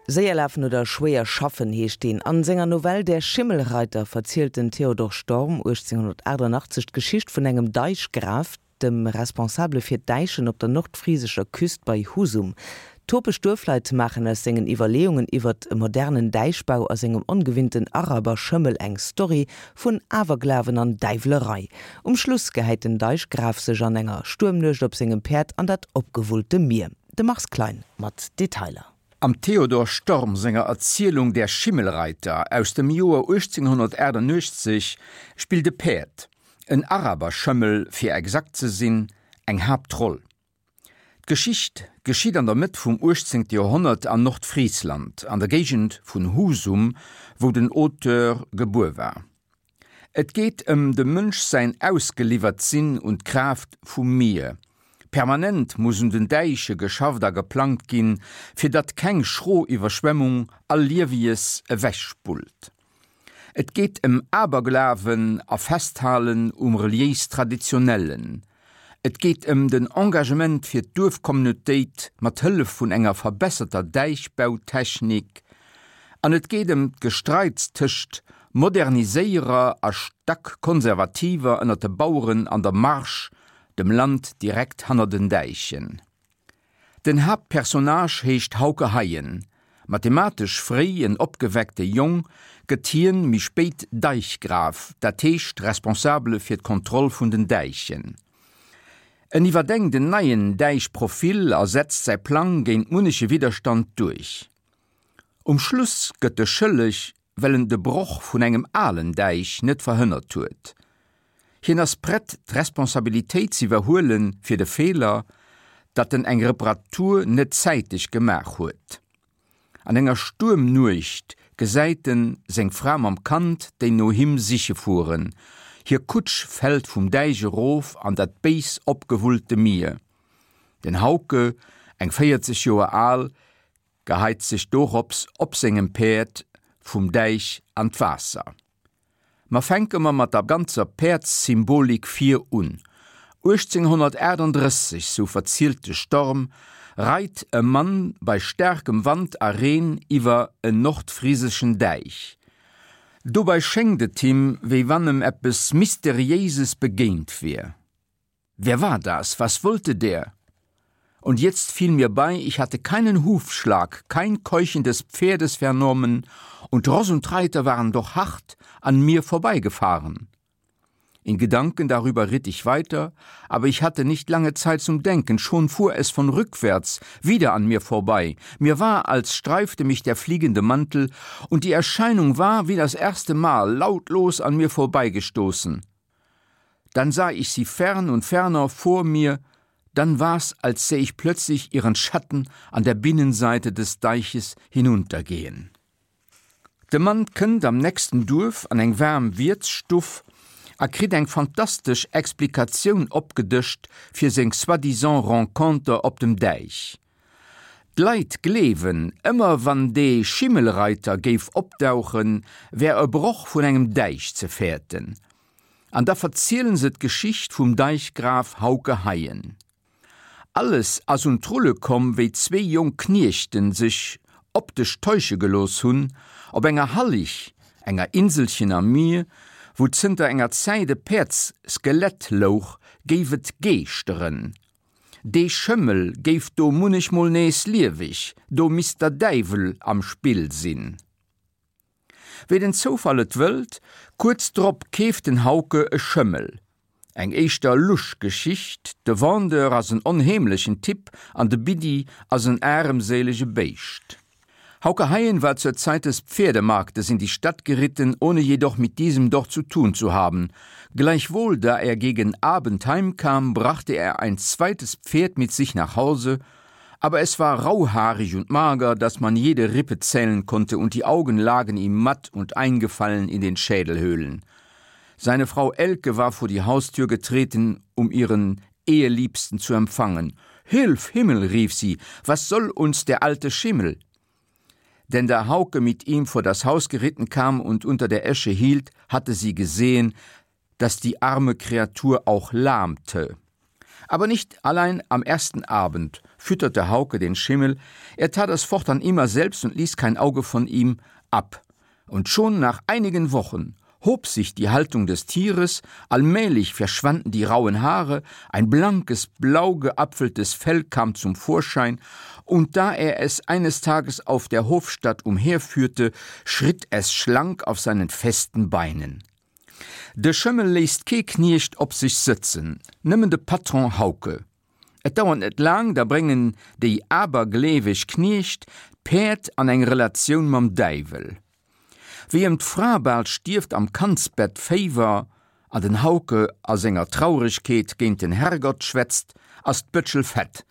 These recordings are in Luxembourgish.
Séier lafen oder schwéier schaffen heescht deen. An senger Novell Der Schimmelreiter verzielt den Theodor Storm 1888 d'Geschicht vun engem Deichgraf, dem Responsabele fir d'Däichen op der nordfrisescher Küst bei Husum. Topeg Duerfleit maachen aus sengen Iwwerleeungen iwwert e modernen Däichbau a sengem ongewinnten Araberschëmmel eng Story vun Awerglawen an Däiwlerei. Um Schluss gehäit den Deichgraf sech an enger Stuermnuecht op sengem Päerd an dat opgewullte Mier. De Mars Klein mat Detailer. Am Theodor Storm senger Erzielung Der Schimmelreiter aus dem Joer 1888 spillt e Päerd, en Araberschëmmel fir exakt ze sinn, eng Haaptroll. D'Geschicht geschitt an der Mëtt vum 18. Joerhonnert an Nordfriesland, an der Géigend vun Husum, wou den Auteur gebuer war. Et geet ëm dem Mënsch säin Ausgeliwwert-Sinn un d'Kraaft vum Mier. Permanent muss un den Däiche geschafft a geplangt ginn, fir datt keng schro Iwwerschwemmung all Liewies ewechspullt. Et geet ëm Aberglawen a Festhalen um reliéis-Traditionellen. Et geet ëm den Engagement fir d'Duerfcommunautéit mat Hëllef vun enger verbesserter Däichbautechnik an et geet ëm d'Gestreits tëscht Moderniséierer a stack Konservativer ënner de Baueren an der Marsch, dem Land direkt hanner den Däichen. Den Haaptpersonnage heescht Hauke Haien. Mathematesch fréi en opgeweckte Jong, gëtt hien méi spéit Deichgraf, dat heescht Responsabele fir d'Kontroll vun den Däichen. En iwwerdenkt en neien Däichprofil a setzt säi Plang géint munneche Widderstand duerch. Um Schluss gëtt e schëlleg, well en de Broch vun engem alen Däich net verhënnert huet. Hien ass prett d'Responsabilitéit z'iwwerhuele fir de Feeler, datt en eng Reparatur net zäiteg gemaach huet. An enger Stuermnuecht gesäit en seng Fra mam Kand, déi no him siche fueren. Hir Kutsch fält vum Däich erof an dat béis opgewullte Mier. Den Hauke, eng 40 Joer al, geheit sech dorops op sengem Päerd vum Däich an d'Waasser. Ma fänke mer mat der ganzer Päerdssymbolik vir un. 1838, sou verzielt de Storm, reit e Mann bei staarkem Wand a Reen iwwer en nordfriseschen Däich. Dobei schéngt et him, wéi wann em eppes Mysteriéises begéint wier. Wer war das? Was wollte der? Und jetzt fiel mir bei, ich hatte keinen Hufschlag, kein Keuchen des Pferdes vernommen, und Ross und Reiter waren doch hart an mir vorbeigefahren. In Gedanken darüber ritt ich weiter, aber ich hatte nicht lange Zeit zum Denken, schon fuhr es von rückwärts wieder an mir vorbei. Mir war, als streifte mich der fliegende Mantel, und die Erscheinung war wie das erste Mal lautlos an mir vorbeigestoßen. Dann sah ich sie fern und ferner vor mir, dann war's, als säh ich plötzlich ihren Schatten an der Binnenseite des Deiches hinuntergehen. De Mann kënnt am nächsten Duerf an eng waarm Wiertsstuff a kritt eng fantastesch Explikatioun opgedëscht fir seng soi-disant Renconter op dem Däich. D'Leit gleewen, ëmmer wann dee Schimmelreiter géif opdauchen, wär e Broch vun engem Däich ze fäerten. An da verzielen se d'Geschicht vum Deichgraf Hauke Haien. Alles ass un d'Rulle komm, wéi zwéi jonk Kniechten sech optesch täusche gelooss hunn, op enger Hallig, enger Inselchen am Mier, wou zënter enger Zäit e Päerdsskelett louch, géif et geeschteren. Dee Schëmmel géif do munnechmol nees lieweg, do misst der Däiwel am Spill sinn. Wéi den Zoufall et wëllt, kuerz drop keeft den Hauke e Schëmmel. Eng éischter lusch Geschicht, de Vendeur ass en onheemlechen Typ an de Biddi ass en aremséilege Béischt. Hauke Haien war zur Zeit des Pferdemarktes in die Stadt geritten, ohne jedoch mit diesem dort zu tun zu haben. Gleichwohl, da er gegen Abend heimkam, brachte er ein zweites Pferd mit sich nach Hause, aber es war rauhaarig und mager, daß man jede Rippe zählen konnte und die Augen lagen ihm matt und eingefallen in den Schädelhöhlen. Seine Frau Elke war vor die Haustür getreten, um ihren Eheliebsten zu empfangen. Hilf Himmel, rief sie, was soll uns der alte Schimmel? Denn da Hauke mit ihm vor das Haus geritten kam und unter der Esche hielt, hatte sie gesehen, dass die arme Kreatur auch lahmte. Aber nicht allein am ersten Abend fütterte Hauke den Schimmel, er tat es fortan immer selbst und ließ kein Auge von ihm ab. Und schon nach einigen Wochen hob sich die Haltung des Tieres, allmählich verschwanden die rauen Haare, ein blankes, blau geapfeltes Fell kam zum Vorschein, und da er es eines Tages auf der Hofstadt umherführte, schritt es schlank auf seinen festen Beinen. De Schëmmel léisst kee Kniecht op sech sëtzen, nëmmen de Patron Hauke. Et dauert net laang, da bréngen déi abergleeweg Kniecht d'Päerd an eng Relatioun mam Däiwel. Wéi ëm d'Fra bal stierft am Kandsbett Féiwer an den Hauke a senger Trauregkeet géint den Herrgott schwätzt, ass d'Bëtschel fett.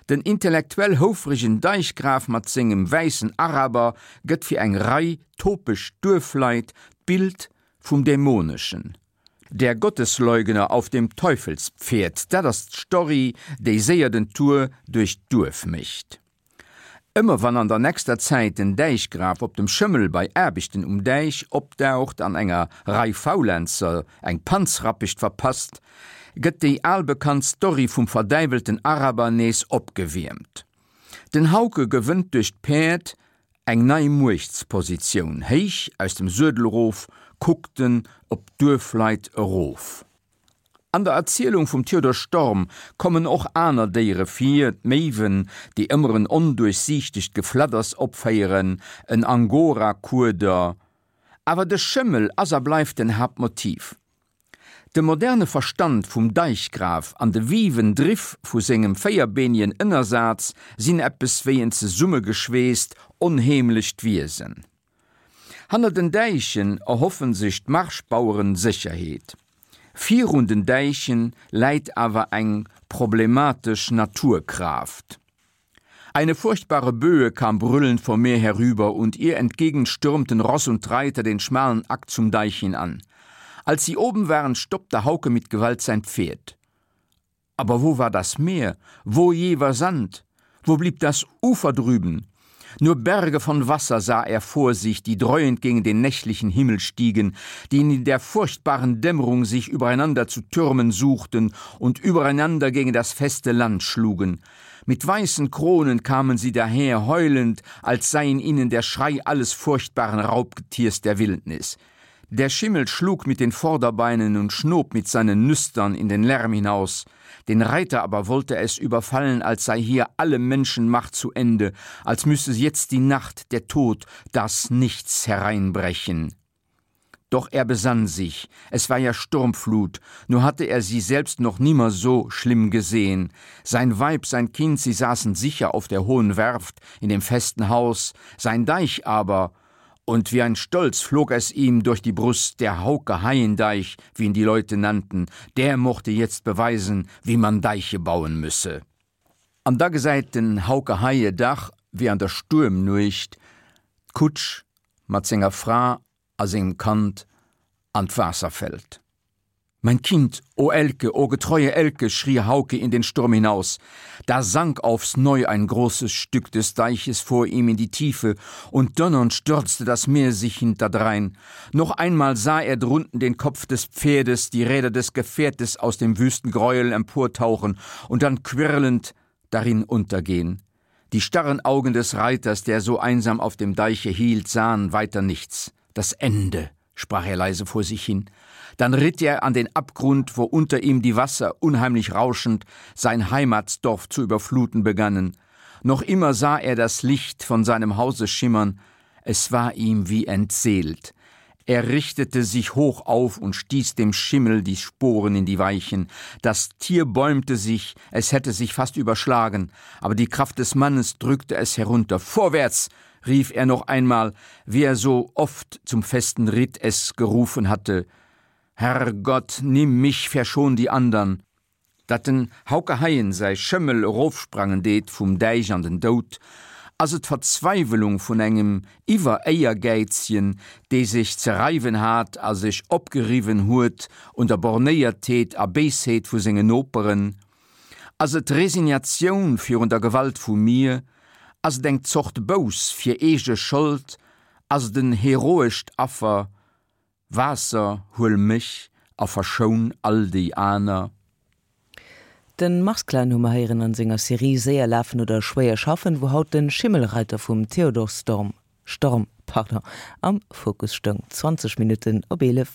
Den intellektuell houfregen Deichgraf mat sengem wäissen Araber gëtt fir eng Rei topeg Duerfleit d'Bild vum Dämoneschen. Der Gottesleugner auf dem Teufelspferd, dat ass d'Story, déi séier den Tour duerch d'Duerf mécht. Ëmmer wann an der nächster Zäit den Däichgraf op dem Schëmmel bei Aarbechten um Däich opdaucht an enger Rei Faulenzer eng Panzrappecht verpasst, gëtt déi albekannt Story vum verdäiwelten Araber nees opgewiermt. Den Hauke gewënnt duerch d'Päerd eng nei Muechtspositioun, héich aus dem Suedel erof kuckt en op d'Duerfleit erof. An der Erzielung vum Theodor Storm kommen och aner Déiere vir, d'Méiwen, déi ëmmer en onduerchsiichtegt Gefladders opféieren, en Angora-Kueder, awer de Schëmmel ass a bleift den Haaptmotiv. De moderne Verstand vum Deichgraf an de viven Driff vu sengem véierbeenien Ënnersaz sinn eppes wéi en zesummegeschweesst, onheemlecht Wiesen. Hanner den Däichen erhoffen sech d'Marschbaueren Sécherheet. Virun den Däichen läit awer eng problematesch Naturkraaft. Eine furchtbare Böe kam brüllend vom Meer herüber und ihr entgegen stürmten Ross und Reiter den schmalen Akt zum Deich hinan. Als sie oben waren, stoppte Hauke mit Gewalt sein Pferd. Aber wo war das Meer? Wo je war Sand? Wo blieb das Ufer drüben? Nur Berge von Wasser sah er vor sich, die dreuend gegen den nächtlichen Himmel stiegen, die in der furchtbaren Dämmerung sich übereinander zu türmen suchten und übereinander gegen das feste Land schlugen. Mit weißen Kronen kamen sie daher heulend, als sei in ihnen der Schrei alles furchtbaren Raubgetiers der Wildnis. Der Schimmel schlug mit den Vorderbeinen und schnob mit seinen Nüstern in den Lärm hinaus. Den Reiter aber wollte es überfallen, als sei hier alle Menschenmacht zu Ende, als müsse jetzt die Nacht, der Tod, das Nichts hereinbrechen. Doch er besann sich, es war ja Sturmflut, nur hatte er sie selbst noch nimmer so schlimm gesehen. Sein Weib, sein Kind, sie saßen sicher auf der hohen Werft in dem festen Haus, sein Deich aber, und wie ein Stolz flog es ihm durch die Brust, der Hauke Haiendeich, wie ihn die Leute nannten, der mochte jetzt beweisen, wie man Deiche bauen müsse. An da gesäit den Hauke Haie dach, wéi an der Stuermnuecht, d'Kutsch mat senger Fra a sengem Kand an d'Waasser fällt. Mein Kind, o Elke, o getreue Elke, schrie Hauke in den Sturm hinaus. Da sank aufs Neu ein großes Stück des Deiches vor ihm in die Tiefe, und donnernd stürzte das Meer sich hinterdrein. Noch einmal sah er drunten den Kopf des Pferdes, die Räder des Gefährtes aus dem wüsten Gräuel emportauchen und dann quirlend darin untergehen. Die starren Augen des Reiters, der so einsam auf dem Deiche hielt, sahen weiter nichts. Das Ende, sprach er leise vor sich hin. Dann ritt er an den Abgrund, wo unter ihm die Wasser unheimlich rauschend sein Heimatsdorf zu überfluten begannen. Noch immer sah er das Licht von seinem Hause schimmern, es war ihm wie entseelt. Er richtete sich hoch auf und stieß dem Schimmel die Sporen in die Weichen. Das Tier bäumte sich, es hätte sich fast überschlagen, aber die Kraft des Mannes drückte es herunter. Vorwärts! rief er noch einmal, wie er so oft zum festen Ritt es gerufen hatte. Herr Gott, nimm mich, verschon die andern! Datt den Hauke Haien säi Schëmmel erofsprangen deet vum Däich an den Doud, ass et d'Verzweiwelung vun engem Iwwer-Éiergäizchen, dee sech ze reiwen hat a sech opgeriwwen huet un der Bornéiertheet a Béisheet vu senge Noperen? Ass et Resignatioun virun der Gewalt vum Mier? Ass et eng Zort Bouss fir eege Schold? Ass et en heroescht Affer? Waasser, huel mech a verschoun all déi aner. Den Mars Klein hu mer héieren an senger Serie Séier lafen oder schwéier schaffen, wou haut den Schimmelreiter vum Theodor Storm, Storm, pardon, am Fokus stoung. 20 Minutten op 11.